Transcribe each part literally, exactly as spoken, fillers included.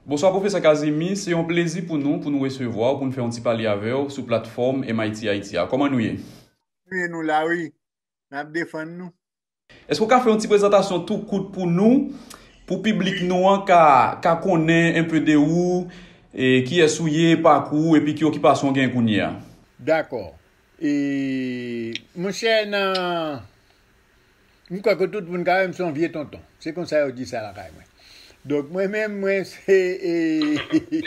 Bonswa, Pwofesè Kazimi. Se yon plezi pou nou, pou nou resevwa w, pou n fè yon ti pale avè w sou platfòm M I T Haiti a. Kòman nou ye? Nou ye, nou la, wi. N ap defann nou. Èske w ka fè yon ti prezantasyon tou kout pou nou, pou piblik nou an ka, ka konnen enpe de ou, e kiyès ou ye, pakou w, epi ki okipasyon w gen kounye a? Dakò. E, monchè, nan, m kwè ke tout moun ka wè m se yon vye tonton. Se konsa yo di sa lakay mwen. Donk, mwen menm, mwen se, e,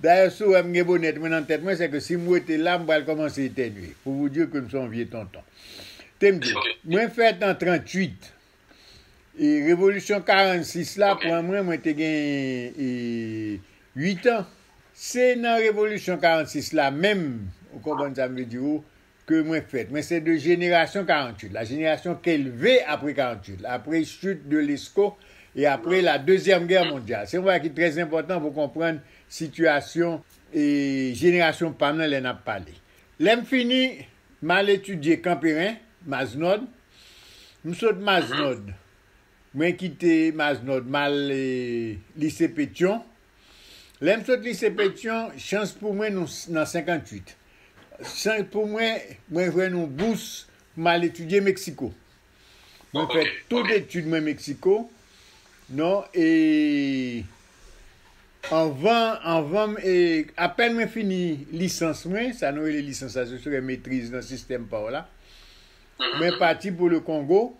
dayè, si w wè m gen bonèt mwen nan tèt mwen, se ke si m rete la, m pral kòmanse etènye. Pou vous dire ke m se yon vye tonton. Te m di, mwen fèt an tranntuit. E revolisyon karannsis la pran mwen, mwen te gen, e, uit an. Se nan revolisyon karannsis la menm, ou konprann sa m vle di ou, ke mwen fèt. Mwen se de jenerasyon karanntuit, la jenerasyon ki leve apre karanntuit, après chute de Lesko et après la Deuxième Guerre mondiale. Se yon bagay ki trè enpòtan pou konprann sitiyasyon e jenerasyon pa m nan lè n ap pale. Lè m fini, m al etidye Kanperen, Maznòd. M sot Maznòd. Mwen kite Maznòd, m al, e, lise Petyon. Lè m sot lise Petyon, chans pou mwen, nou s-, nan senkantuit. Chans pou mwen, mwen jwenn yon bous pou m al etidye Meksiko. Mwen fè tout etid mwen Meksiko. Non, e anvan, anvan m, e apèn mwen fini lisans mwen, sa nou rele lisans la, se sere metriz nan sistèm pa w la. Mwen pati pou le Kongo,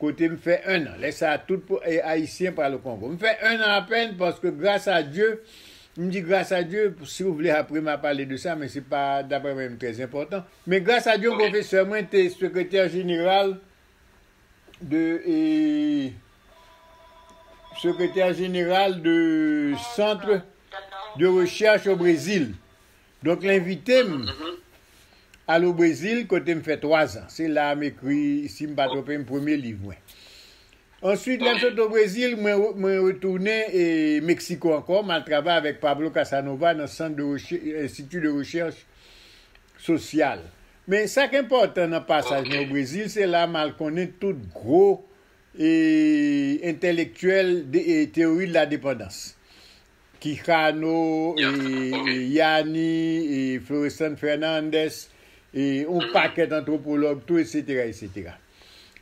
kote m fè en an. Lè sa a, tout po-, e, Ayisyen pral o Kongo. M fè en an apèn paske, gras a Dye, m di gras a Dye, si w vle, apre m a pale de sa, men se pa, daprè mwen, trè enpòtan. Men gras a Dye, yon pwofesè mwen te sekretè jeneral de, e, sekretè jeneral de Centre de Recherche au Brésil. Donk, l envite m al o Brezil, kote m fè twa zan. Se la a m ekri, si m pa twonpe m, premye liv mwen. Answit, lè m sot o Brezil, mwen, mwen retounen, e, Meksiko ankò, m al travay avèk Pablo Casanova nan sant de rechè-, Institut de Recherche Sociale. Men sa k enpòtan nan pasaj mwen o Brezil, se la m al konnen tout gwo, e, entèlektyèl de, e, teyori de la depandans. Quijano, e, e, Yanni, e, Florestan Fernandez, e, yon pakèt antwopològ tou, etsetera, etsetera.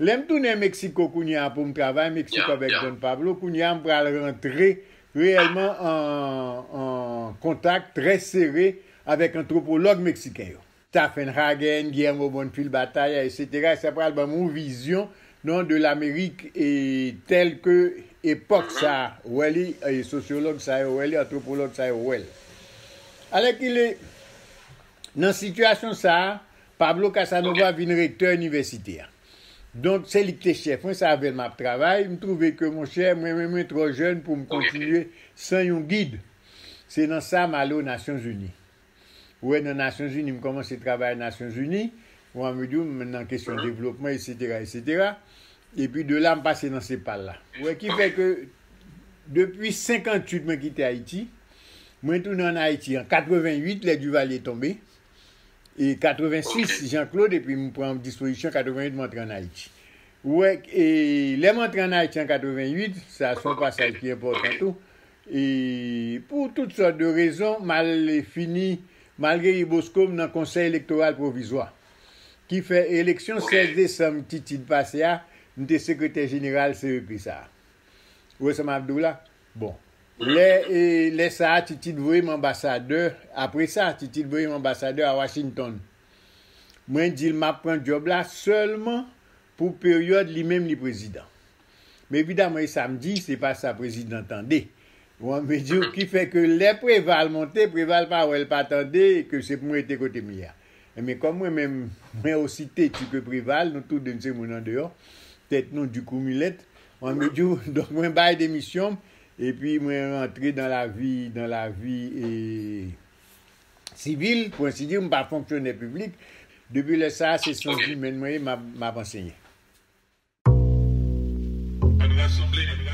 Lè m tounen Meksiko kounye a pou m travay Meksiko avèk Don Pablo, kounye a m pral rantre reyèlman an, an kontak trè sere avèk antwopològ meksiken yo. Staffenhagen, Guillermo Bonfil Batalla, etsetera. Sa pral ban m yon vizyon, non, de Lamerik, e tèl ke epòk sa a wè li, e sosyològ sa yo wè li, antwopològ sa yo wè l. Alèkile, nan sitiyasyon sa a, Pablo Casanova vin rektè inivèsite a. Donk, se li ki te chèf mwen, se avè l m ap travay. M twouve ke, monchè, mwen menm, mwen twò jèn pou m kontinye san yon gid. Se nan sa m ale o Nasyonzini. Ou wè, nan Nasyonzini, m kòmanse travay Nasyonzini, ou an medya, m nan kesyon devlopman, etsetera, etsetera. Epi de la, m pase nan CEPAL la. Ou wè, ki fè ke depi senkantuit, mwen kite Ayiti, mwen tounen ann Ayiti an katreventuit, lè Duvalier tonbe, e katrevensis, Jean-Claude, epi m pran dispozisyon, katreventuit, m antre ann Ayiti. Ou wè, e lè m antre ann Ayiti an katreventuit, sa se yon pasaj ki enpòtan tou, e pou tout sòt de rezon, m al fini, malgre Bosco, m nan Konsèy Elektoral Pwovizwa, ki fè eleksyon sèz desanm Titid pase a, m te sekretè jeneral C E P sa a. Ou wè sa m ap di w la? Bon. Lè, e, lè sa a, Titid voye m anbasadè. Apre sa, Titid voye m anbasadè a Washington. Mwen di l m ap pran djòb la sèlman pou peryòd li menm li prezidan. Men evidaman, e sa m di, se pa sa prezidan tande. Ou an medya, ki fè ke lè Preval monte, Preval pa wè l pa tande, ke se pou m rete kote m ye a. Enben, kòm mwen menm, mwen osi teti ke Preval, nou tou de n se moun andeyò, tèt nou di kou milèt, ou an medya, donk mwen bay demisyon m, epi mwen rantre dans la vie, dans la vie, e, sivil, pou ensi di, m pa fonksyonè piblik. Depi lè sa a, se syans imèn mwen ye, m ap, m ap ansenye. Ann rasanble, ann